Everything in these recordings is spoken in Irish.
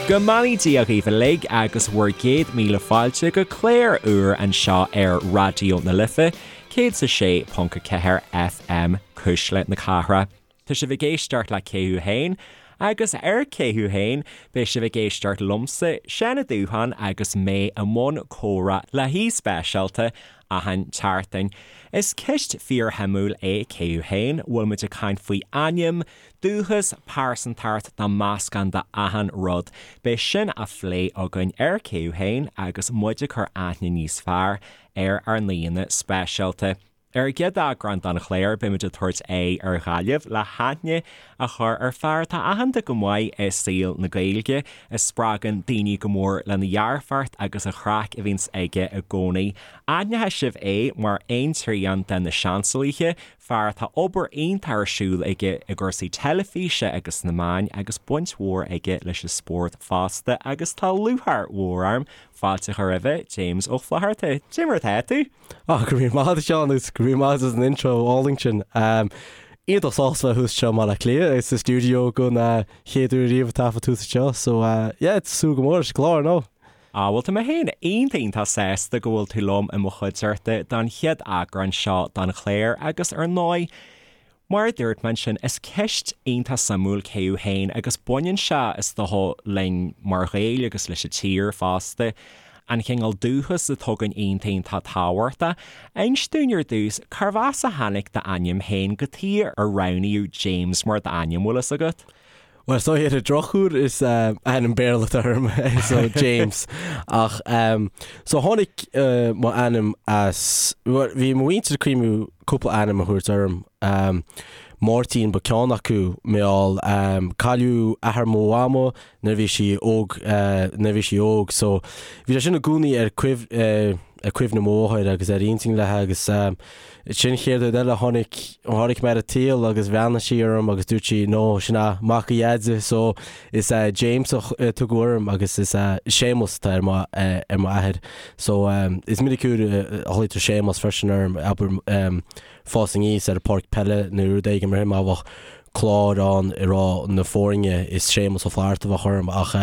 Go mbeannaí Dia dhaoibh uilig agus bhur gcéad míle fáilte go clár úr anseo ar Raidió na Life 106.4 FM, Cuisle na Cathrach. Tá sibh ag éisteacht le Cé Thú Féin? Agus ar Cé Thú Féin? beidh sibh ag éisteacht liomsa, Seán Ó Dúcháin agus mé i mbun comhrá le haoi speisialta achan tseachtain. Is ceist fíorshuimiúil é Cé Thú Féin? Bhfuil muid ag caint faoi ainm, dúchas, pearsantacht nó meascán de achan rud. Beidh sin á phlé againn ar Cé Thú Féin agus muid ag cur aithne níos fearr ar ár n-aíonna speisialta. Ar an gcéad eagrán den chlár, beimid ag tabhairt aghaidh ar Ghaillimh le haithne a chur ar fear atá aitheanta go maith i saol na Gaeilge, a spreagann daoine go mór lena dhearfacht agus a chraic a bhíonns aige i gcónaí. Aithneoidh sibh é mar aon trian de na Seansálaithe, fear atá obair iontach ar siúl aige i gcúrsaí teilifíse agus sna meáin agus baint mhór aige leis an spórt fosta agus tá lúcháir mhór orm fáilte a chur roimhe, James Ó Flaithearta. Cad é mar atá tú? Ah, go raibh míle maith agat, a Sheáin, agus go raibh míle maith agat as an intro álainn sin. Iontach sásta bheith thuas anseo i mBaile Átha Cliath, sa stiúideo don chéad uair riamh ag taifead thuas anseo, so yeah, súil go mór leis an gclár, no? Ah, bhuel tá mé féin iontach iontach sásta go bhfuil tú liom i mo chuideachta don chéad eagrán seo den chlár agus ar ndóigh, Mar a dúirt mé ansin, is ceist iontach suimiúil cé thú féin agus baineann sé, is dócha, linn mar Ghaeil agus leis an tír fosta, an cineál dúchas atá againn iontach iontach tábhachtach. Inis dúinn ar dtús, cárbh as a tháinig d'ainm féin, cad chuige ar roghnaíodh James mar d'ainm, bhfuil fhios agat? Bhuel, so ar an drochuair is ainm Béarla atá orm, so James. Ach so tháinig mo ainm as, bhuel, bhí mo mhuintir ag cuimhniú cúpla ainm a thabhairt orm. Máirtín ba ceann acu, mar gheall cailleadh athair mo mhama nuair a bhí sí óg, nuair a bhí sí óg, so bhí sé sin i gcónaí ar ar cuimhne mo mháthair agus ar intinn léi agus Sin chéad rud eile, tháinig, tháinig mé ar an tsaol agus bhreathnaigh sí orm agus dúirt sí, no, sin é mac a Dheaide, so is James a tugadh orm agus is Séamus atá ar mo, ar mo athair. So is minic uair a ghlaoitear Séamus freisin orm, abair, fás aníos ar an pháirc peile nó rud éigin mar sin, má bheadh clár ann ag rá na foirne is Séamus Ó Flatharta a bheadh orm ach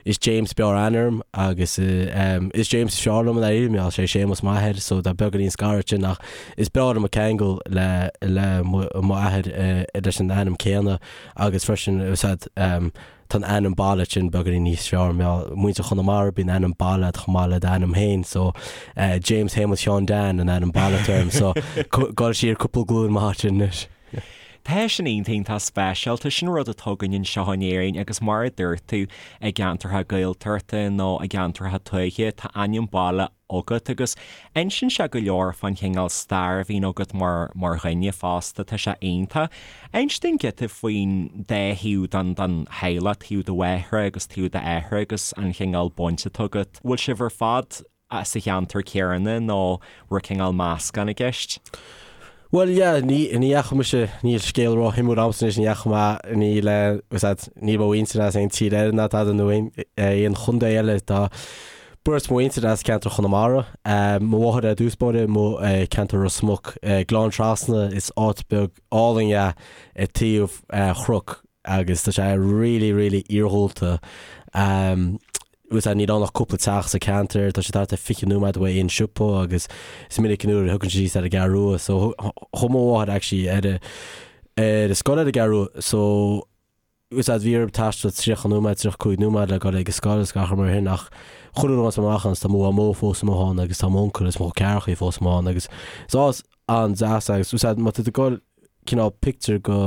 is James b'fhearr aithne orm agus is James is fearr liom i ndáiríre mar gheall sé Séamus m'athair so tá beagáinín scaradh ansin ach is breá liom an ceangal le le mo athair leis an ainm céanna agus freisin is ea tá an ainm baile sin beagáinín níos fearr mar gheall muintir Chonamara bíonn ainm baile agat chomh maith le d'ainm féin so James Shéamuis Sheáin Dan an ainm baile atá orm so gabháil siar cúpla glúin maith ansin anois. Tá sin iontach iontach speisialta, sin rud atá againn anseo in Éirinn agus mar a dúirt tú, i gceantartha Gaeltachta nó i gceantartha tuaithe, tá ainm baile agat agus insíonn sé go leor fán chineál stair a bhíonn agat mar mar dhuine fosta, tá sé iontach. Inis dúinn giota faoin dá thaobh den den theaghlach, taobh do mháthara agus taobh d'athara agus an chineál baint atá agat. Bhfuil sibh ar fad sa cheantar céanna nó raibh cineál meascán i gceist? Bhuel, yeah, ní, ní dheachaigh mise, níl scéal ró-shuimiúil a'msa anois, ní dheachaigh mé, níl, eh, was that, níl mo mhuintir as aon tír eile ná tada nó aon, eh, aon chontae eile, tá beirt mo mhuintir as ceantar Chonamara, eh, mo mháthair ar dtús báire, mo, eh, ceantar Ros Muc, eh, Gleann Trasna, is áit beag álainn é ar taobh, eh, chnoc agus tá sé really, really iarghúlta. Um, Bhuel níl ann ach cúpla teach sa ceantar, tá sé thart ar 20 nóiméad uaidh aon siopa agus is minic an uair a thiocfainn síos ar an gCeathrú Rua so chuaigh mo mháthair actually ar a ar a scoil ar an gCeathrú Rua so bhfuil a fhios a'd bhí orm taisteal 30 nóiméad, 35 nóiméad le dul ag an scoil is gach rud mar sin ach chuile uair a bhíonns mé amach ann tá mo mhamó fós amuigh ann agus tá m'uncail is mo chol ceathrachaí fós amuigh ann agus is áit an-deas é agus bhfuil a fhios a'd má tá tú ag dul cineál pictiúr go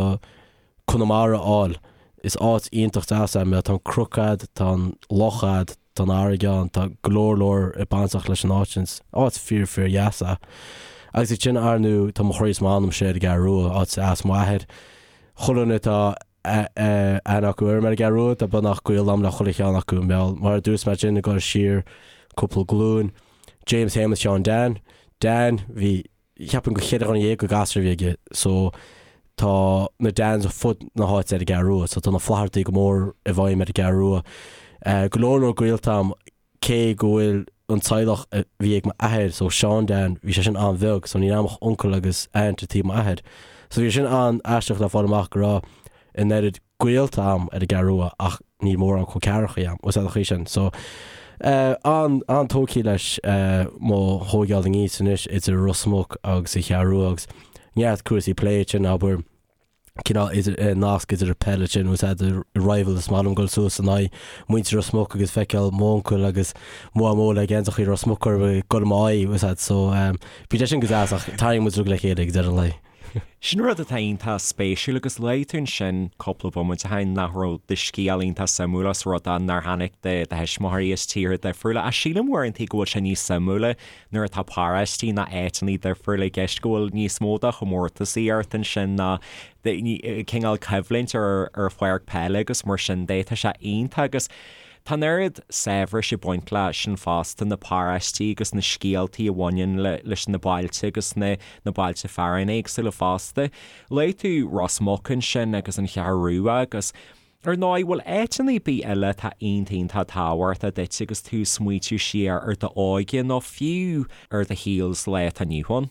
Conamara a fháil. Is áit iontach deas é mar tá an cnoc a'd, tá an loch a'd, tá an fharraige ann, tá go leor leor bainteach leis an áit sin. Is áit fíor fíor dheas é. Agus ansin ar ndóigh tá mo chroí is m'anam siar ar an gCeathrú Rua, áit as m'athair. Chuile dhuine atá aithne acu orm ar an gCeathrú Rua, tá beagnach gaol a'm le chuile cheann acu. Mar a dúirt mé ansin ag dul siar cúpla glúin, James Shéamuis Sheáin Dan, Dan, bhí cheapfainn gur cheithre dhuine dhéag de ghasúir a bhí aige so tá na Dans ar fud na háite ar an gCeathrú Rua so tá na Flaitheartaí go mór i bhfeidhm ar an gCeathrú Rua. Go leor leor gaolta a'm cé go bhfuil an teaghlach a bhí ag m'athair so Seán Dan bhí sé sin an-bheag so níl a'm ach uncail agus aunt ar taobh m'athair so bhí sé sin an-aisteach le fáil amach go raibh an oiread gaolta a'm ar an gCeathrú Rua ach. níl mórán col ceathracha a'm, bhfuil a fhios a'd an chaoi sin. So an, an-tógtha leis mo thóigeáil aníos anois idir Ros Muc agus an Cheathrú Rua agus neart cúrsaí plé ansin, abair, cineál idir, nasc idir an peil ansin, bhfuil a fhios a'd, rival is maith liom dul suas in aghaidh muintir Ros Muc agus feiceáil m'uncail agus mo mhamó le geansachaí Ros Muc orthu ag dul i m'aghaidh, bhfuil a fhios a'd, so bíonn sé sin go deas ach tarraingíonn muid uilig le chéile ag deireadh an lae. Sin rud atá iontach spéisiúil agus luaigh tú ansin cúpla bomaite ó shin nach raibh do scéal iontach suimiúil os rud é nár tháinig do thuismitheoirí as tíortha difriúla ach sílim uaireanta go bhfuil sé níos suimiúla nuair atá paróistí ná áiteanna difriúla i gceist go bhfuil níos mó de chomórtasaí ort ansin ná cineál coimhlint ar ar pháirc peile agus mar sin de. Tá sé iontach agus tá an oiread saibhris ag baint leis sin fosta, na paróistí agus na scéaltaí a bhaineann leis na bailte agus na na bailte fearainn éagsúla fosta. Luaigh tú Ros Muc ansin agus an Cheathrú Rua agus Ar ndóigh, bhfuil áiteanna ar bith eile atá iontach iontach tábhachtach duit agus tú ag smaoitiú siar ar d'óige nó fiú ar do shaol sa lá atá inniu ann?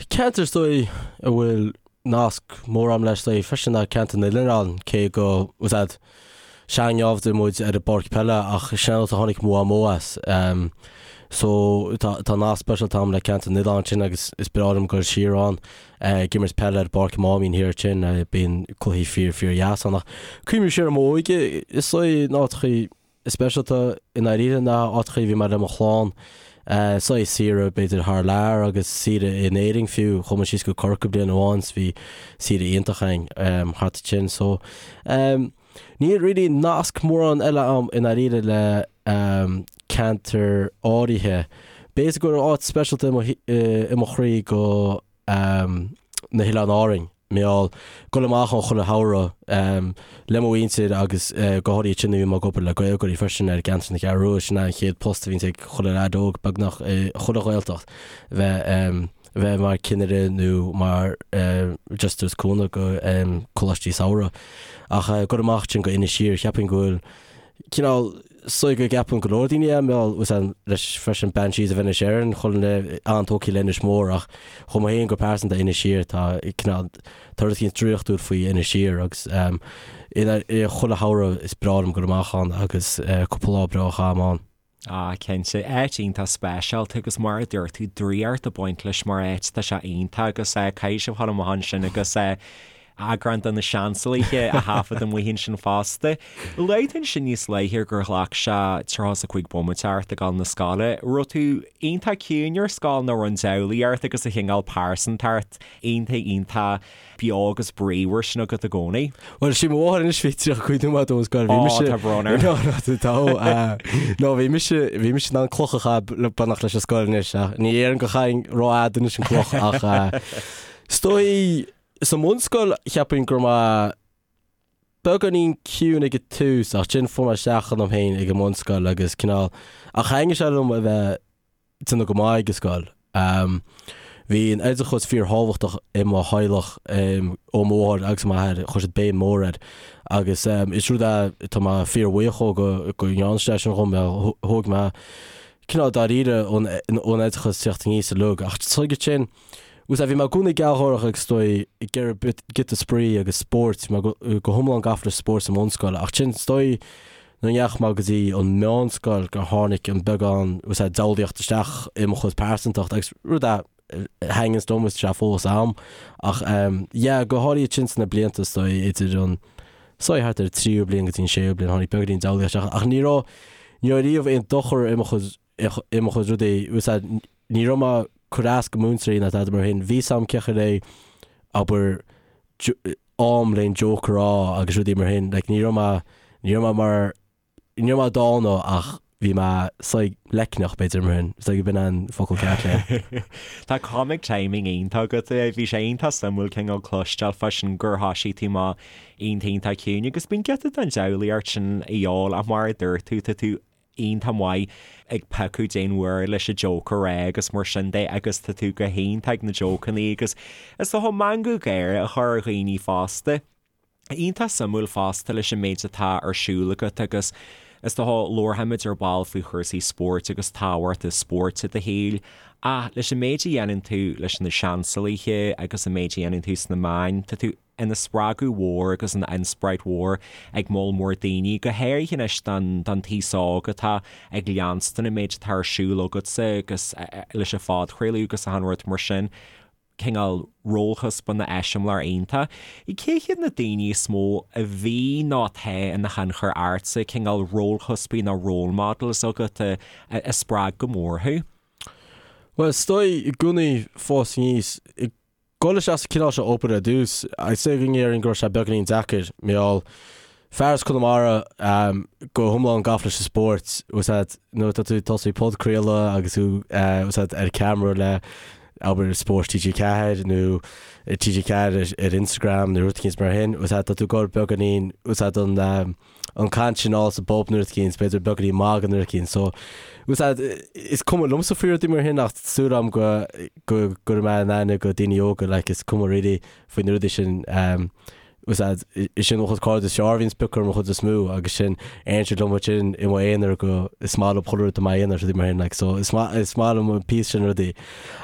Ceantar is dóigh a bhfuil nasc mór agam leis is dóigh freisin ná ceantar na nOileán, cé go, bhfuil a fhios a'd, sean-naimhde muid ar an bpáirc peile ach sin an áit a tháinig mo mhamó as. So tá tá nasc speisialta agam le ceantar na nOileán sin agus is breá liom dul siar ann. Ag imirt peile ar bpáirc Mháimín thiar ansin, bíonn cluichí fíor fíor dheas ann. Ach cuimhním siar ar m'óige, is dóigh na áiteachaí is speisialta i ndáiríre ná áiteachaí a bhí mé le mo chlann, saghas saoire b'fhéidir thar lear agus saoire in Éirinn fiú, chuaigh muid síos go Corcaigh bliain amháin 's bhí saoire iontach againn thart ansin. So níl really nasc mórán eile agam i ndáiríre le ceantar áirithe. B'fhéidir go bhfuil áit speisialta i mo chroí go na hOileáin Árainn, mar gheall dul amach ann chuile shamhradh le mo mhuintir agus go háirithe ansin nuair a bhí mé ag obair le Gaelgáirí freisin ar gceantar na Ceathrú Rua, sin é an chéad post a bhíonns ag chuile leaid óg beagnach i chuile Ghaeltacht, bheith bheith mar cinnire nó mar just tabhairt cúnamh go coláistí samhraidh. Ach dul amach ansin go Inis Oírr, cheapfainn go bhfuil cineál is dóigh go gceapann go leor daoine é, mar gheall leis freisin Banshees of Inisherin, chuile dhuine an-tógtha le Inis Mór ach dhom féin go pearsanta Inis Oírr tá cineál tá rud éicint draíochtúil faoi Inis Oírr agus i chuile shamhradh is breá liom dul amach ann agus cúpla lá breá a chaitheamh ann. Ah, cinnte. Áit iontach speisialta agus mar a dúirt tú, draíocht ag baint leis mar áit, tá sé iontach agus caithfidh sibh dhul amach ansin agus eagrán de na Seansálaithe a thaifead amuigh ansin fosta. Luaigh tú ansin níos luaithe gur ghlac sé 35 bomaite ort ag dul na scoile. Raibh tú iontach ciúin ar scoil nó raibh an diabhlaíocht agus an chineál pearsantacht iontach iontach beo agus bríomhar sin agat i gcónaí. Bhuel, sí mo mháthair anois bhí 35 nóiméad ón scoil, bhí mise... Ó, tá brón orm. No, no, tá, no, bhí mise, bhí mise in ann cloch a chaitheamh le beannacht leis an scoil anois, ach ní déarfainn go chaithfinn rófhada anois an cloch, ach is dóigh, sa mbunscoil, cheapfainn go raibh mé beagáinín ciúin ag an tús, ach ansin fuair mé isteach ionam féin ag an mbunscoil agus cineál, ach thaitnigh sé liom a bheith déanamh go maith ag an scoil. Bhí an oideachas fíorthábhachtach i mo theaghlach, ó mo mháthair agus m'athair, chuir siad béim mhór air agus is rud é atá mé fíorbhuíoch dhó go go ndearna siad é sin dhom, thóg mé cineál dáiríre ón oideachas teacht aníos uilig ach tuige sin, bhí mé i gcónaí gealgháireach agus is dóigh ag iarraidh giota spraoi agus spóirt, bhí mé go hiomlán gafa le spórt sa mbunscoil ach sin is dóigh Nuair a ndeachaigh mé go dtí an meánscoil gur tháinig an beagán bhfuil a fhios a'd diabhlaíocht isteach i mo chuid pearsantacht agus rud a thaitníonns liom is tá sé fós a'm ach yeah go háirithe ansin sna blianta is dóigh idir an is dóigh thart ar an tríú bliain go dtí an séú bliain tháinig beagáinín diabhlaíocht isteach ach ní raibh ní raibh riamh aon dochar i mo chuid i mo chuid rudaí bhfuil a fhios a'd ní raibh mé ag cur as go múinteoirí ná tada mar sin bhí a fhios a'm cén chaoi le abair am le an joke a rá agus rudaí mar sin. Like, ní raibh mé, ní raibh mé mar, ní raibh mé dána ach bhí mé saghas leicneach b'fhéidir mar sin. Is dóigh go b'in an focal ceart le. Tá comic timing iontach agat. Bhí sé iontach suimiúil cineál cloisteáil fá sin gur thoisigh tú amach iontach iontach ciúin agus bíonn giota den diabhlaíocht sin a dhíobháil ach mar a dúirt tú, tá tú iontach maith ag piocadh cén uair leis an joke a rá agus mar sin de agus tá tú go hiontach ag na jokeanna agus is dócha meangadh gáire a chur ar dhaoine fosta. Iontach suimiúil fosta leis an méid atá ar siúl agat agus is dócha labharfaimid ar ball faoi chúrsaí spóirt agus tábhacht an spóirt i do shaol ach leis an méid a dhéanann tú leis na Seansálaithe agus an méid a dhéanann tú sna meáin, tá tú. ina spreagadh mhór agus ina inspioráid mhór ag moll mór daoine, go háirithe anois don taos óg atá ag leanstan an méid atá ar siúl agatsa agus leis an phodchraoladh agus achan rud mar sin, cineál rólchuspána eiseamláir iontach. Cé hiad na daoine is mó a bhí nó atá ina thionchar ortsa, cineál rólchuspaí nó role models agat a spreag go mór thú? Bhuel, is dóigh i gcónaí fás aníos, ag dul isteach sa cineál seo obair ar dtús, is dóigh go ndéarfainn go raibh sé beagáinín deacair, mar gheall fear as Conamara go hiomlán gafa leis an spórt, bhfuil a fhios agat, nuair atá tú ag tosú podchraoladh agus tú bhfuil a fhios agat ar ceamara le abair Spórt TG4 nó TG4 ar Instagram nó rud eicínt mar sin, bhfuil a fhios agat, tá tú ag dul beagáinín, bhfuil a fhios agat, an an caint sin thall sa bpub nó rud eicínt, b'fhéidir beagáinín magadh nó rud eicínt. So, bhfuil a fhios agat, is cuma liomsa faoi rudaí mar sin ach súil agam go go gcuirfidh mé in aithne go daoine óga like is cuma really faoi na rudaí sin um, bhfuil a fhios agat, is sin mo chuid cairde is fearr a bhíonn ag piocadh orm an chuid is mó agus sin éiríonn siad liom ansin i mo aonar go is maith liom chuile rud i m'aonar rudaí mar sin like so is maith is maith liom an píosa sin rudaí.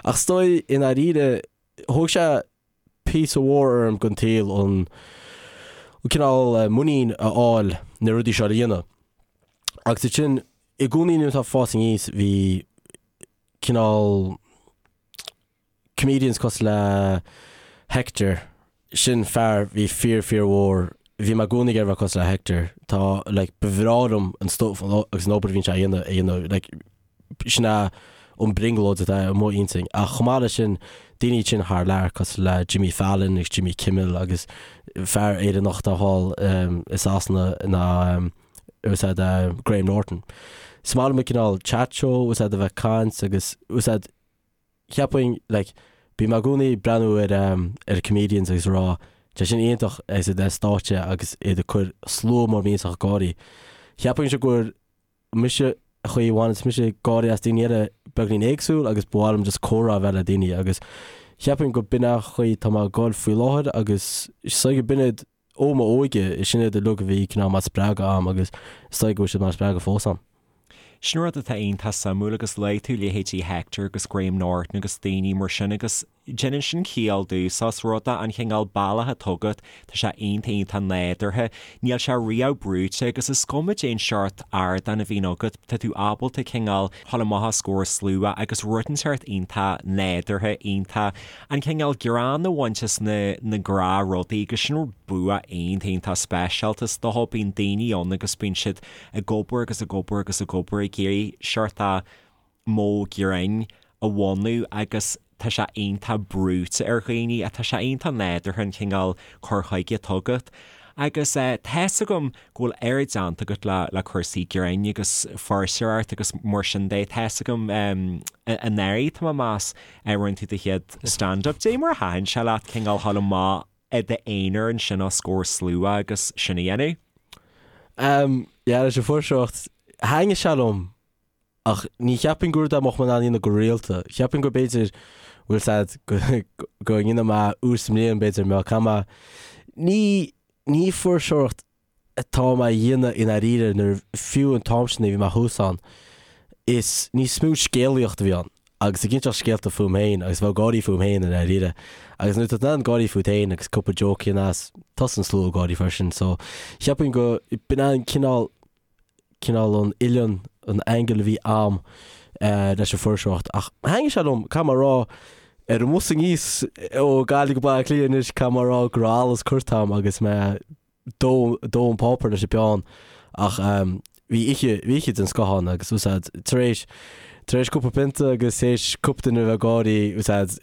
Ach is dóigh i ndáiríre thóg sé píosa mhór orm den tsaol an cineál muinín a fháil na rudaí seo a dhéanamh. Agus ansin i gcónaí nuair atá fás aníos bhí cineál comedians cosúil le Hector, sin fear bhí fíor fíor mhór, bhí mé i gcónaí ag iarraidh bheith cosúil le Hector, tá like ba bhreá liom an stuff agus an obair a bhíonn sé a dhéanamh a dhéanamh like sin é an brionglóid atá i mo intinn. Ach chomh maith leis sin, daoine sin thar lear cosúil le Jimmy Fallon agus Jimmy Kimmel agus fear Éireannach atá thall i Sasana ná bhfuil a fhios agat Graham Norton. Is maith liom an cineál chat show, bhfuil a fhios agat a bheith ag caint agus bhfuil a fhios agat cheapfainn like bím i gcónaí ag breathnú ar ar comedians agus ag rá tá sin iontach agus iad ar stáitse agus iad ag cur slua mór millteach ag gáirí. Cheapfainnse gur mise an chaoi a bhaineanns mise gáirí as daoine eile beagáinín éagsúil agus ba mhaith liom just comhrá a bheith le daoine agus cheapfainn go b'in an chaoi tá mé ag goil faoi láthair agus is dóigh go b'in iad ó m'óige, sin iad uilig a bhí cineál mar spreagadh a'm agus is dóigh go bhfuil siad mar spreagadh fós a'm. Sin rud atá iontach suimiúil agus luaigh tú leithéidí Hector agus Graham Norton agus daoine mar sin agus déanann sin ciall domhsa os rud é an chineál bealach atá agat, tá sé iontach iontach nádúrtha, níl sé riamh brúite agus is cuma cén seort ardán a bhíonn agat, tá tú ábalta cineál dhul amach os comhair slua agus rud inteacht iontach nádúrtha, iontach an cineál greann a bhaint as na na gnáthrudaí agus sin bua iontach iontach speisialta is dócha, bíonn daoine ann agus bíonn siad ag obair agus ag obair agus ag obair ag iarraidh seort a modh grinn a bhunú agus tá sé iontach brúite ar dhaoine ach tá sé iontach nádúrtha an cineál cur chuige atá agat. Agus tá's agam go bhfuil oiread déanta agat le le cúrsaí grinn agus fuirseoireacht agus mar sin de, tá's agam anuraidh tá mé ag meas rinne tú do chéad stand-up. Dé mar a thaitin sé leat cineál dhul amach i d'aonar ansin os comhair slua agus sin a dhéanamh? Yeah, leis an fuirseoireacht, thaitnigh sé liom Ach ní cheapfainn gur rud é a mbeadh mé in ann a dhéanamh go rialta. Cheapfainn go b'fhéidir, bhfuil 's a'd, go go ndéanfaidh mé uair sa mbliain b'fhéidir, mbeadh caithfidh mé, ní, ní fuirseoireacht atá mé a dhéanamh i ndáiríre nuair, fiú an t-am sin a bhí mé thuas ann, is níos mó scéalaíocht a bhí ann agus ag inseacht scéalta fúm féin agus bheith ag gáirí fúm féin i ndáiríre. Agus nuair atá tú in ann gáirí fút féin agus cúpla joke a dhéanamh as, tosaíonn an slua ag gáirí freisin. So, cheapfainn go, b'in an cineál, cineál an uillinn, an angle a bhí a'm leis an fuirseoireacht. Ach thaitnigh sé liom, caithfidh mé a rá, ar an mbus aníos ó Gaillimh go Baile Átha Cliath anois, caithfidh mé a rá go raibh allas curtha a'm agus mé ag dó, dó an páipéar leis an bpeann. Ach bhí oíche, bhí oíche den scoth ann agus bhfuil 's a'd, tar éis, tar éis cúpla pionta agus tar éis cúpla duine a bheith ag gáirí, bhfuil 's a'd,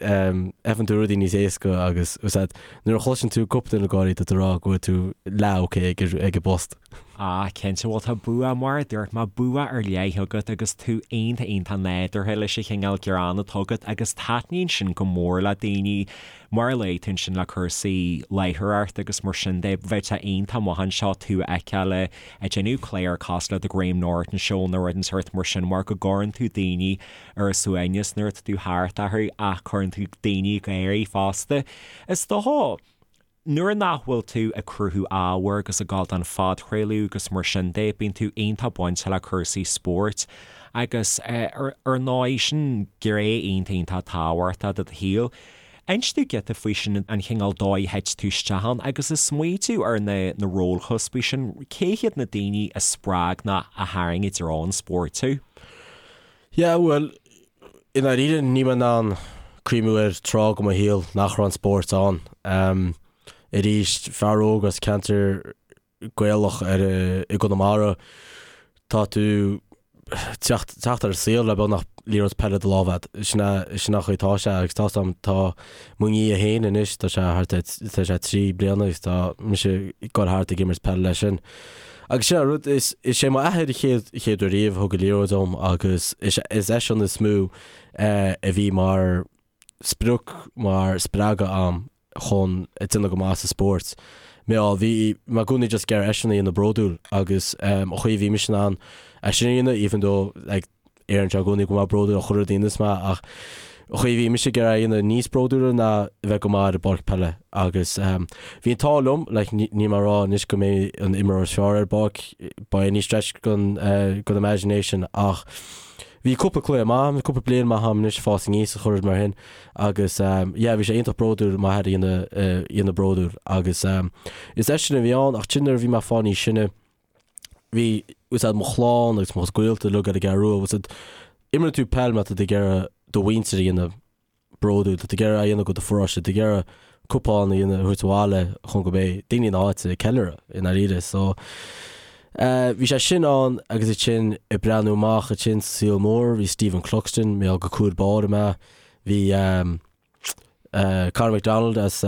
feiceann tú rudaí níos éasca agus bhfuil 's a'd, nuair a chloiseann tú cúpla duine ag gáirí, tá tú ag rá go bhfuil tú leath ok ag, ag an bpost. Ah, cinnte, bhuel tá bua, mar a dúirt mé, bua ar leith agat agus tú iontach iontach nádúrtha leis an chineál greann atá agat agus taitníonn sin go mór le daoine, mar a luaigh tú ansin le cúrsaí láithreoireachta agus mar sin de, bheadh sé iontach maith anseo tú a fheiceáil ag déanamh clár cosúil le The Graham Norton Show nó rud den sórt mar sin mar go gcuireann tú daoine ar a suaimhneas nuair atá tú thart orthu ach cuireann tú daoine ag gáirí fosta. Is dócha. Nuair nach bhfuil tú ag cruthú ábhair agus ag gabháil don phodchraoladh agus mar sin de, bíonn tú iontach bainte le cúrsaí spóirt agus ar ndóigh, sin gné iontach iontach tábhachtach de do shaol. Inis domh giota faoi sin, an chineál dóigh a thit tú isteach ann agus ag smaoitiú ar na na rólchuspaí sin, cé hiad na daoine a spreag nó a tharraing i dtreo an spóirt thú? Yeah, bhuel, i ndáiríre níl mé in ann cuimhniú ar tráth de mo shaol nach raibh an spórt ann. Arís, fear óg as ceantar Gaelach ar i gConamara, tá tú teacht teacht ar an saol le beagnach liathróid peile i do lámh agat. Sin é sin an chaoi atá sé agus tá 'fhios a'm tá mo nia féin anois tá sé thart ar tá sé 3 bliana agus tá mise ag goil thart ag imirt peile leis sin. Agus sin an rud is is é m'athair an chéad chéad uair riamh a thug an liathróid dom agus is is eisean is mó a bhí mar sprioc mar spreagadh a'm chun déanamh go maith sa spórt. Mar bhí mé i gcónaí just ag iarraidh eisean a dhéanamh bródúil agus an chaoi a bhí mise in ann é sin a dhéanamh even though like deireann sé i gcónaí go bhfuil mé bródúil as chuile rud a dhéanas mé ach an chaoi a bhí mise ag iarraidh é a dhéanamh níos bródúla ná a bheith go maith ar an bpáirc peile agus bhí an t-ádh liom like níl mé ag rá anois go mé an imreoir is fearr ar an bpáirc by any stretch den den imagination ach bhí cúpla cluiche maith a'm, cúpla bliain maith a'm anois ag fás aníos is chuile rud mar sin Agus yeah bhí sé iontach bródúil m'athair a dhéanamh a dhéanamh bródúil agus is eisean a bhí ann ach ansin nuair a bhí mé ag fáil níos sine bhí fhios a'd mo chlann agus mo chuid gaolta uilig ar an gCeathrú Rua fhios a'd imríonn tú peil mar tá tú ag iarraidh do mhuintir a dhéanamh bródúil tá tú ag iarraidh a dhéanamh go do pharóiste tá tú ag iarraidh cupán a dhéanamh a thabhairt abhaile chun go mbeidh daoine na háite ag ceiliúradh i ndáiríre so bhí sé sin ann agus ansin ag breathnú amach ansin sa saol mór bhí Stephen Cluxton mé go cúl báire mé bhí Conor McDonald as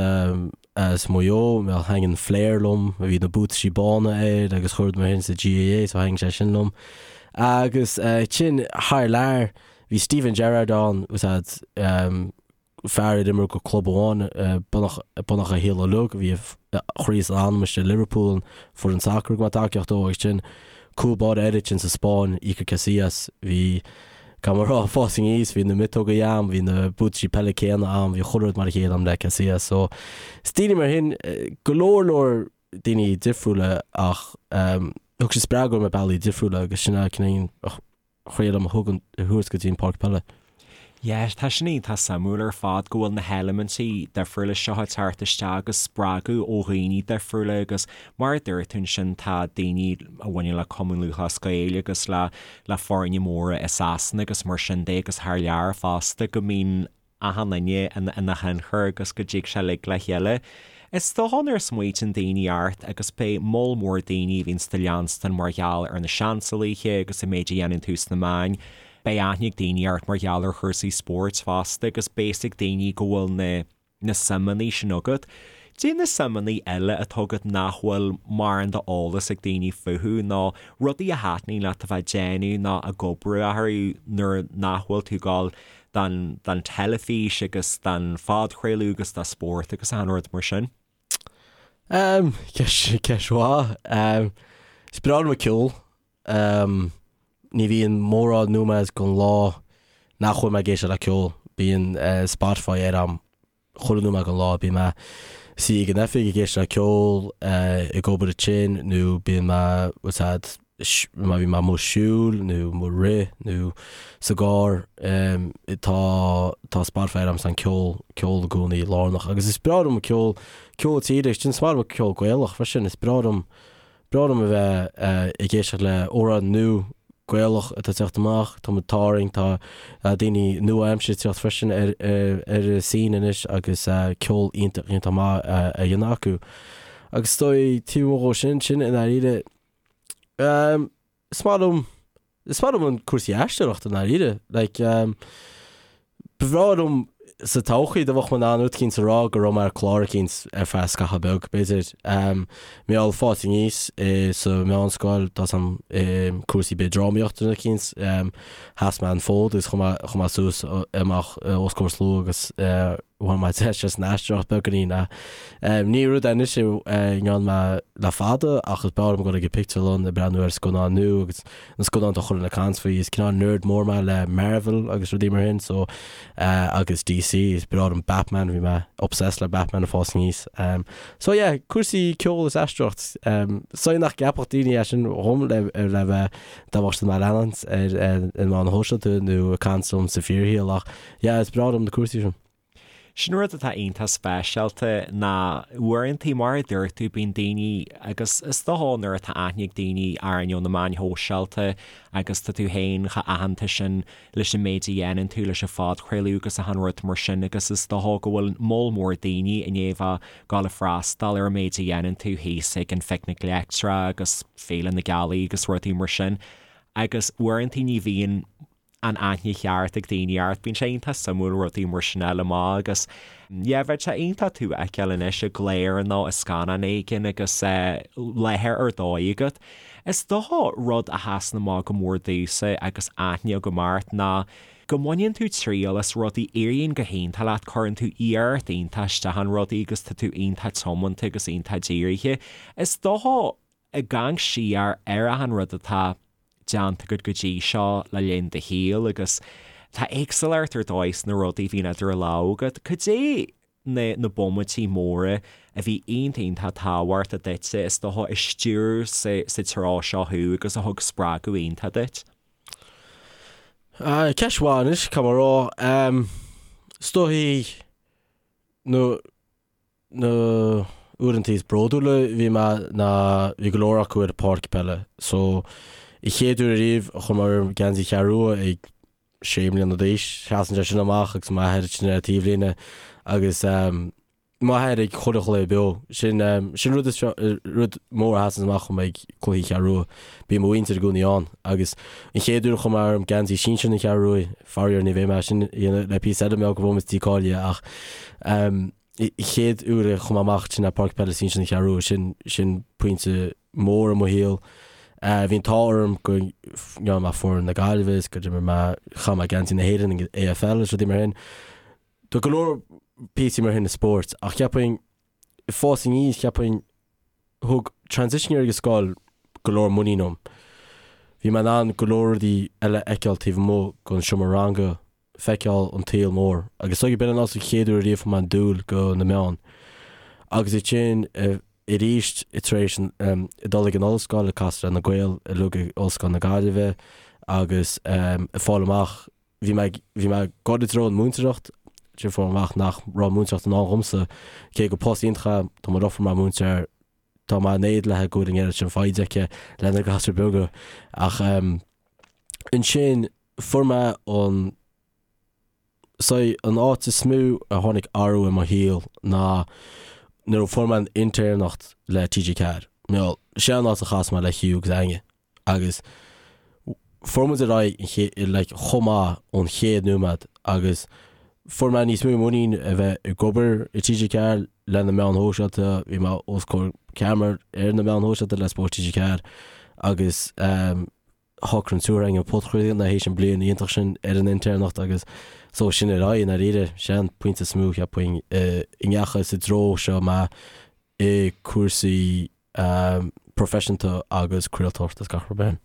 as Maigh Eo mé thaitin flair liom bhí na buataisí bána air agus chuile rud mar sin sa GAA so thaitin sé sin liom agus ansin thar lear bhí Steven Gerrard ann fhios a'd fear ar imir go club amháin beagnach a shaol uilig, bhí a chroí is a anam istigh i Liverpool, an foireann sacair go mbeadh tacaíocht dó agus sin cúl báire eile ansin sa Spáinn, Iker Casillas, bhí, caithfidh mé a rá, ag fás aníos, bhí na miotóga a'm, bhí na buataisí peile céanna a'm, bhí chuile rud mar a chéile a'm le Casillas. So, is daoine mar shin, go leor leor daoine difriúla ach thug siad spreagadh dom ar bealaí difriúla agus sin é cineál thriail a thug an thabhairt go dtí an páirc peile. Yeah, tá sin iontach suimiúil ar fad go bhfuil na heilimintí difriúla seo ag teacht isteach agus spreagadh ó dhaoine difriúla agus mar a dúirt tú ansin tá daoine a bhaineann le Cumann Lúthchleas Gael agus le le foirne móra i Sasana agus mar sin de agus thar lear fosta go mbíonn achan duine ina thionchar agus go dtig sé uilig le chéile. Is dócha nuair a smaoitíonn daoine ort agus beidh moll mór daoine a bhíonns do leanstan mar gheall ar na seansálaithe agus an méid a dhéanann tú sna meáin, beidh aithne ag daoine ort mar gheall ar chúrsaí spóirt fosta agus beidh fhios ag daoine go bhfuil na na suimeanna sin agat. Cad é na suimeanna eile atá agat nach bhfuil mórán d'eolas ag daoine fúthu nó rudaí a thaitníonn leat a bheith ag déanamh nó ag oibriú orthu nuair nach bhfuil tú ag dul don don teilifís agus don phodchraoladh agus do spórt agus achan rud mar sin? Um, ceist, ceist mhaith. Um, is breá liom an ceol. Um, ní bhíonn mórán nóiméad den lá nach bhfuil mé ag éisteacht le ceol. Bíonn uh, Spotify ar a'm chuile nóiméad den lá. Bíonn mé suí ag an oifig ag éisteacht le ceol, uh, ag obair ansin nó bíonn mé what's that, má bhíonn mé amuigh ag siúl nó amuigh ag rith nó sa gcarr um, tá tá Spotify ar a'm an ceol ceol i gcónaí lárnach agus is breá liom ceol ceol tíre sin is maith liom ceol Gaelach freisin is breá liom breá liom a bheith ag éisteacht le amhráin nua Gaelach atá ag teacht amach, tá muid tarraing, tá daoine nua-aimseartha ag teacht freisin ar ar an scene anois agus ceol iontach iontach maith á dhéanamh acu. Agus is dóigh taobh amuigh dhó sin, sin i ndáiríre, is maith liom Is maith liom an cúrsaí aisteoireachta i ndáiríre. Like, um, ba bhreá liom sa todhchaí dá mbeadh mé in ann rud eicínt a rá go raibh mé ar chlár eicínt ar feadh scaitheamh beag, b'fhéidir. Um, mar gheall fás aníos i sa mheánscoil, tá 'fhios a'm um, cúrsaí b'fhéidir drámaíochta nó eicínt, um, sheas mé an fód agus chuaigh mé, chuaigh mé suas amach os comhair slua agus uh, bhain mé deis as an aisteoireacht beagáinín ach ní rud é anois a ndearna mé le fada ach is breá liom dul ag an pictiúrlann ag breathnú ar scannáin nua agus na scannáin atá chuile dhuine ag caint faoi. Is cineál nerd mór mé le Marvel agus rudaí mar sin so agus DC is breá liom Batman, bhí mé obsessed le Batman ag fás aníos. So yeah, cúrsaí ceoil is aisteoireacht. So nach gceapfadh daoine é sin dhom le le bheith dá mbeadh siad mé a leanúint ar na meáin shóisialta nó ag caint liom sa fíorshaol ach Yeah, is breá liom na cúrsaí sin. Sin rud atá iontach speisialta ná uaireantaí, mar a dúirt tú, bíonn daoine, agus is dócha nuair atá aithne ag daoine orainn ó na meáin shóisialta agus tá tú féin chomh aitheanta sin leis an méid a dhéanann tú leis an phodchraoladh agus achan rud mar sin agus is dócha go bhfuil moll mór daoine i ndiaidh a bheith ag gabháil a freastal ar an méid a dhéanann tú thíos ag an Phicnic Leictreach agus Féile na Gealaí agus rudaí mar sin agus uaireantaí ní bhíonn an aithne cheart ag daoine ort. Bíonn sé iontach suimiúil rudaí mar sin a fháil amach agus yeah bheadh sé iontach tú a fheiceáil anois i gclár nó i scannán éigin agus láthair ar dóigh agat. Is dócha rud a sheasann amach go mór domhsa agus aithne agam ort ná go mbaineann tú triail as rudaí, éiríonn go hiontach leat, cuireann tú iarracht iontach isteach in rudaí agus tá tú iontach tiomanta agus iontach dírithe. Is dócha ag amharc siar ar achan rud atá déanta agat go dtí seo le linn do shaoil agus tá éagsúlacht ar dóigh sna rudaí a bhíonn idir lámha agat. Cad é na na bomaití móra a bhí iontach iontach tábhachtach duitse, is dócha, a stiúir sa sa treo seo thú agus a thug spreagadh iontach duit? Ceist mhaith anois, caithfidh mé a rá. Is dóichí na na uaireanta is bródúla a bhí mé ná bhí go leor acu ar an pháirc peile. So, an chéad uair ariamh a chuir mé orm geansaí Cheathrú Rua ag sé mbliana d'aois, seasann sé sin amach agus m'athair ansin ar an taobhlíne agus m'athair ag chuile chluiche beo. Sin sin rud is rud mór a sheasann amach dhom ag cluichí Cheathrú Rua. Bíonn mo mhuintir i gcónaí ann agus an chéad uair a chuir mé orm geansaí sinsir na Cheathrú Rua, faraor ní bheidh mé sin a dhéanamh le píosa eile mar go bhfuil muid dícháilithe ach chéad uair a chuaigh mé amach sin ar Páirc Peile Sinsir na Ceathrú Rua, sin, sin pointe mór i mo shaol. Bhí an t-ádh orm go ndearna mé foireann na Gaillimhe is go d'imir mé, chaith mé geansaí na hÉireann ag AFL is rudaí mar sin. Tá go leor píosaí mar sin i spórt ach cheapfainn, ag fás aníos, cheapfainn, thug transition year ag an scoil go leor muinín dom. Bhí mé in ann go leor rudaí eile a fheiceáil taobh amuigh den seomra ranga feiceáil an tsaol mór agus is dóigh b'in an also chéad uair ariamh fuair mé an dúil go na meáin. Agus ansin arís tar éis dul ag an ollscoil ag casadh le na Gaeil uilig ag Ollscoil na Gaillimhe agus ag fáil amach bhí mé bhí mé ag dul i dtreo an múinteoireacht ansin fuair mé amach nach raibh múinteoireacht i ndán dhomsa cé gur post iontach é tá mo dheirfiúr mar múinteoir tá mé in éad léi go bhfuil an oiread sin foighde aici le na gasúir beaga ach ansin Fuair mé an saghas, an áit is mó a tháinig athrú i mo shaol ná nuair a fuair mé an intéirneacht le TG4. Bhuel, sé an áit a chas mé le Hugh agus Áine agus fuair muid ar aghaidh an ché- like chomh maith ón chéad nóiméad agus fuair mé níos mó muinín a bheith ag obair i TG4 le na meáin shóisialta, bhí mé os comhair ceamara ar na meáin shóisialta le Spórt TG4 agus ehm, shocraigh an triúr againn an podchraoladh théis an bliain iontach sin ar an intéirneacht agus so sin ar aghaidh i ndáiríre. Sé an pointe is mó cheapfainn i ndeachaigh sa dtreo seo mé i cúrsaí proifisiúnta agus craoltóireachta is gach rud mar sin.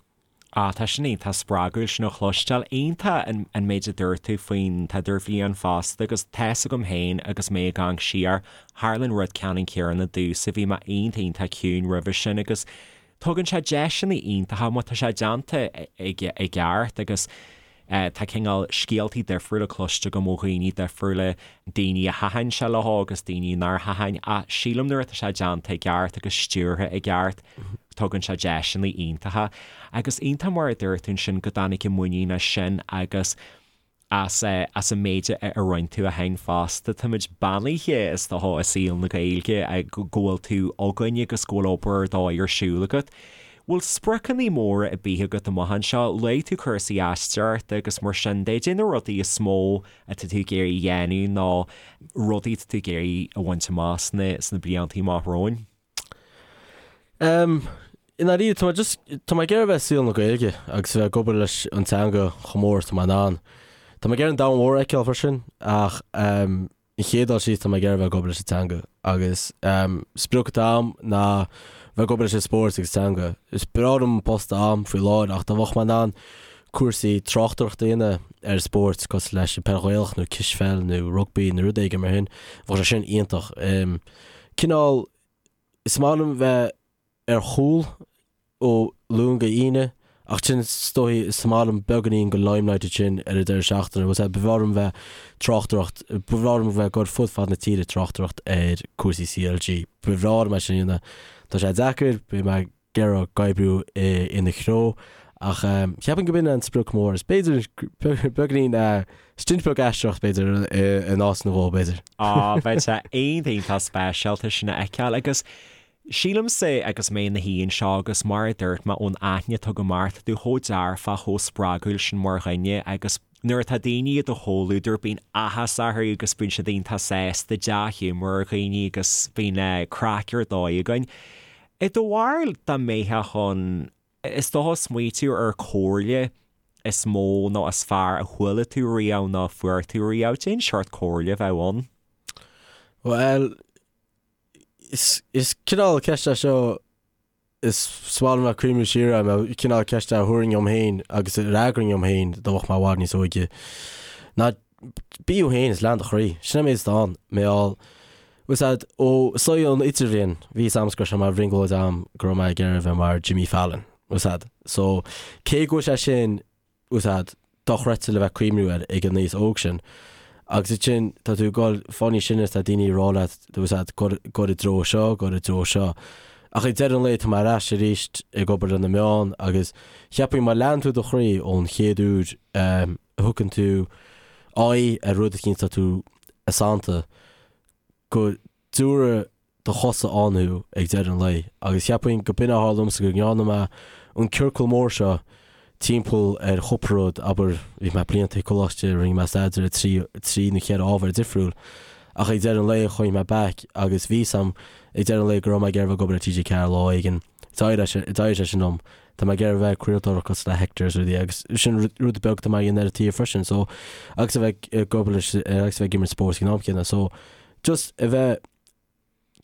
Ah, tá sin iontach spreagúil sin a chloisteáil. Iontach an méid a dúirt tú faoin t-idirbhliain fosta agus tá's agam féin agus mé ag amharc siar, tharla an rud ceannann céanna domhsa, bhí mé iontach iontach ciúin roimhe sin agus Tugann sé deiseanna iontacha má tá sé déanta i gceart agus tá cineál scéaltaí difriúla cloiste agam ó dhaoine difriúla, daoine a thaitin sé leo agus daoine nár thaitin ach sílim nuair atá sé déanta i gceart agus stiúrtha i gceart tugann sé deiseanna iontacha. Agus iontach mar a dúirt tú ansin go dtáinig an muinín as sin agus as as an méid a roinn tú ó shin fosta. Táimid beannaithe, is dócha, i saol na Gaeilge go bhfuil tú againn agus go bhfuil obair ar dóigh ar siúl agat. Bhfuil spriocanna móra ar bith agat amach anseo? Luaigh tú cúrsaí aisteoireachta agus mar sin de. Cad é na rudaí is mó atá tú ag iarraidh a dhéanamh nó rudaí atá tú ag iarraidh a bhaint amach sna sna blianta amach romhainn? I ndáiríre, tá mé just, tá mé ag iarraidh a bheith i saol na Gaeilge agus a bheith ag obair leis an teanga chomh mór is atá mé in ann. Tá mé ag iarraidh an domhan mhór a fheiceáil freisin ach an chéad dul síos tá mé ag iarraidh a bheith ag obair leis an teanga agus sprioc atá agam ná bheith ag obair leis an spórt agus teanga. Is breá liom an post atá agam faoi láthair ach dá mbeadh mé in ann cúrsaí tráchtaireachta a dhéanamh ar spórt cosúil leis an peil Ghaelach nó cispheil nó rugbaí nó rud éigin mar sin, bheadh sé sin iontach. Cineál, is maith liom bheith ar chúl ó Luan go hAoine Ach sin is dóigh is maith liom beagáinín den limelight sin ar an deireadh seachtaine, bhfuil a fhios a'd, ba bhreá liom bheith tráchtaireacht, ba bhreá liom bheith ag dul fud fad na tíre ag tráchtaireacht ar cúrsaí CLG. Ba bhreá liom é sin a dhéanamh. Tá sé deacair, beidh mé ag iarraidh oibriú ina threo ach cheapfainn go b'in an sprioc mór is b'fhéidir beagáinín stint beag aisteoireacht b'fhéidir in áit nó dhó b'fhéidir. Á, bheadh sé iontach speisialta sin a fheiceáil agus Sílimse, agus mé ina shuí anseo agus mar a dúirt mé ón aithne atá agam ort, tá tú chomh dearfach, chomh spreagúil sin mar dhuine agus nuair atá daoine i do chomhluadar bíonn áthas orthu agus bíonn siad iontach sásta, dea-ghiúmar ar dhaoine agus bíonn craic ar dóigh againn. I do bharúil dá mbeifeá chun, is dócha, smaoitiú ar comhairle is mó nó is fearr a chuala tú riamh nó a fuair tú riamh, cén seort comhairle a bheadh ann? Bhuel, Is cineál ceist é seo is maith liom bheith ag cuimhniú siar air, mar cineál ceist é a thabharfainn dhom féin agus a fhreagrainn dhom féin dá mbeadh mé i bhfad níos óige. Ná bí thú féin is lean do chroí. Sin an méid atá ann. Mar gheall, bhfuil a fhios a'd, ó saol an idirbhliain, bhí fhios a'msa go raibh sé mar bhrionglóid a'm go raibh mé ag iarraidh a bheith mar Jimmy Fallon. Bhfuil a fhios a'd. So, cé go bhfuil sé sin bhfuil a fhios a'd, dochreidte le bheith ag cuimhniú air ag an aois óg sin. Agus ansin tá tú ag dul fáil níos sine is tá daoine ag rá leat, bhfuil a fhios a'd, gabh i dtreo seo, gabh i dtreo seo. Ach ag deireadh an lae tá mé ar ais arís ag obair le na meáin agus cheapfainn má lean tú do chroí ón chéad uair a thugann tú aghaidh ar rud eicínt tá tú sannta go dtabharfaidh do chosa ann thú ag deireadh an lae. Agus cheapfainn go b'in a tharla domsa go ndearna mé an ciorcal mór seo timpeall ar chúpla rud, abair, bhí mé blianta ag coláiste, rinne mé staidéar ar trí, trí nó cheithre ábhar difriúil, ach ag deireadh an lae chuaigh mé back agus bhí 'fhios a'm ag deireadh an lae go raibh mé ag iarraidh bheith ag obair le TG4 lá éigin. D'éirigh sé, d'éirigh sé sin liom. Tá mé ag iarraidh bheith ag craoltóireacht cosúil le Hector is rudaí agus sin rud beag atá mé a dhéanamh ar an taobh freisin so agus a bheith ag obair leis agus a bheith ag imirt spóirt ag an am céanna so just a bheith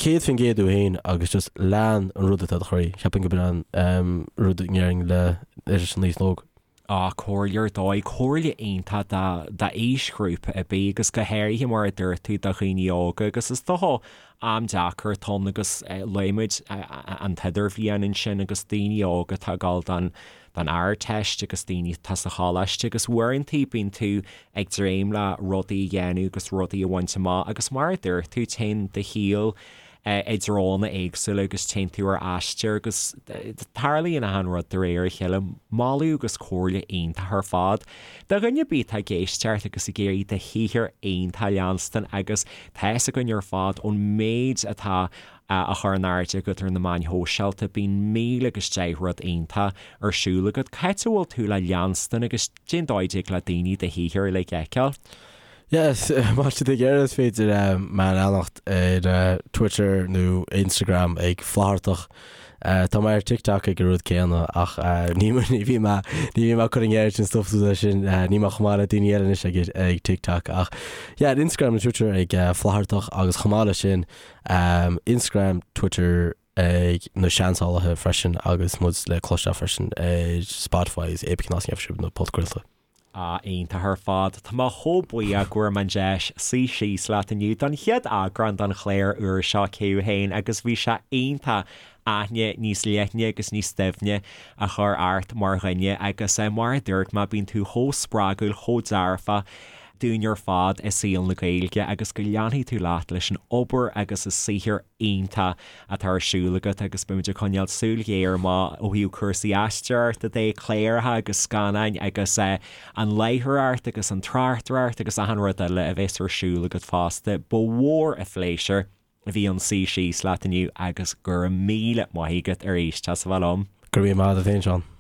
100% tú féin agus just lean an rud atá i do chroí. Cheapfainn go b'in an rud a ndéarfainn le leis an aos óg. Á, comhairle ar dóigh, comhairle iontach d'aoisghrúpa ar bith agus go háirithe mar a dúirt tú do dhaoine óga agus is dócha am deacair atá ann agus luaigh muid an t-idirbhliain ansin agus daoine óga atá ag dul don don Ardteist agus daoine atá sa choláiste agus uaireanta bíonn tú ag dréim le rudaí a dhéanamh agus rudaí a bhaint amach agus mar a dúirt tú téann do shaol i dtreonna éagsúla agus téann tú ar aistear agus tarlaíonn achan rud de réir a chéile. Moladh agus comhairle iontach ar fad. Do dhuine ar bith atá ag éisteacht agus ag iarraidh do shaothar iontach a leanstan agus tá fhios againn ar fad ón méid atá á chur in airde agat ar na meáin shóisialta, bíonn 1000 agus 10 rud iontach ar siúl agat. Cá háit a bhfuil tú le leanstan agus cén dóigh a dtig le daoine do shaothar uilig a fheiceáil? Yes, má tá siad ag iarraidh is féidir mé a leanacht ar Twitter nó Instagram ag Flaitheartach. Tá mé ar TikTok ag an rud céanna ach ní ní bhíonn mé ní bhíonn mé ag cur an oiread sin stuff suas sin níl mé chomh maith le daoine eile anois ag ag TikTok ach yeah ar Instagram nó Twitter ag Flaitheartach agus chomh maith leis sin Instagram, Twitter ag Na Seansálaithe freisin agus muid le cloisteáil freisin ar Spotify agus Apple Cinn as na podchraolta. Ah, iontach ar fad. Tá mé chomh buíoch go bhfuair mé an deis suí síos leat inniu don chéad eagrán den chlár úr seo Cé Thú Féin agus bhí sé iontach aithne níos leithne agus níos doimhne a chur ort mar dhuine agus mar a dúirt mé bíonn tú chomh spreagúil, chomh dearfach dúinn ar fad i saol na Gaeilge agus go leanfaidh tú leat leis an obair agus an saothar iontach atá ar siúl agat agus beimid ag coinneáil súil ghéar amach ó thaobh cúrsaí aisteoireachta de, cláracha agus scannáin agus an láithreoireacht agus an tráchtaireacht agus achan rud eile a bheas ar siúl agat fosta. Ba mhór an phléisiúr a bhí ann suí síos leat inniu agus go raibh míle maith agat arís as a bheith liom. Go raibh míle maith agat féin, Seán.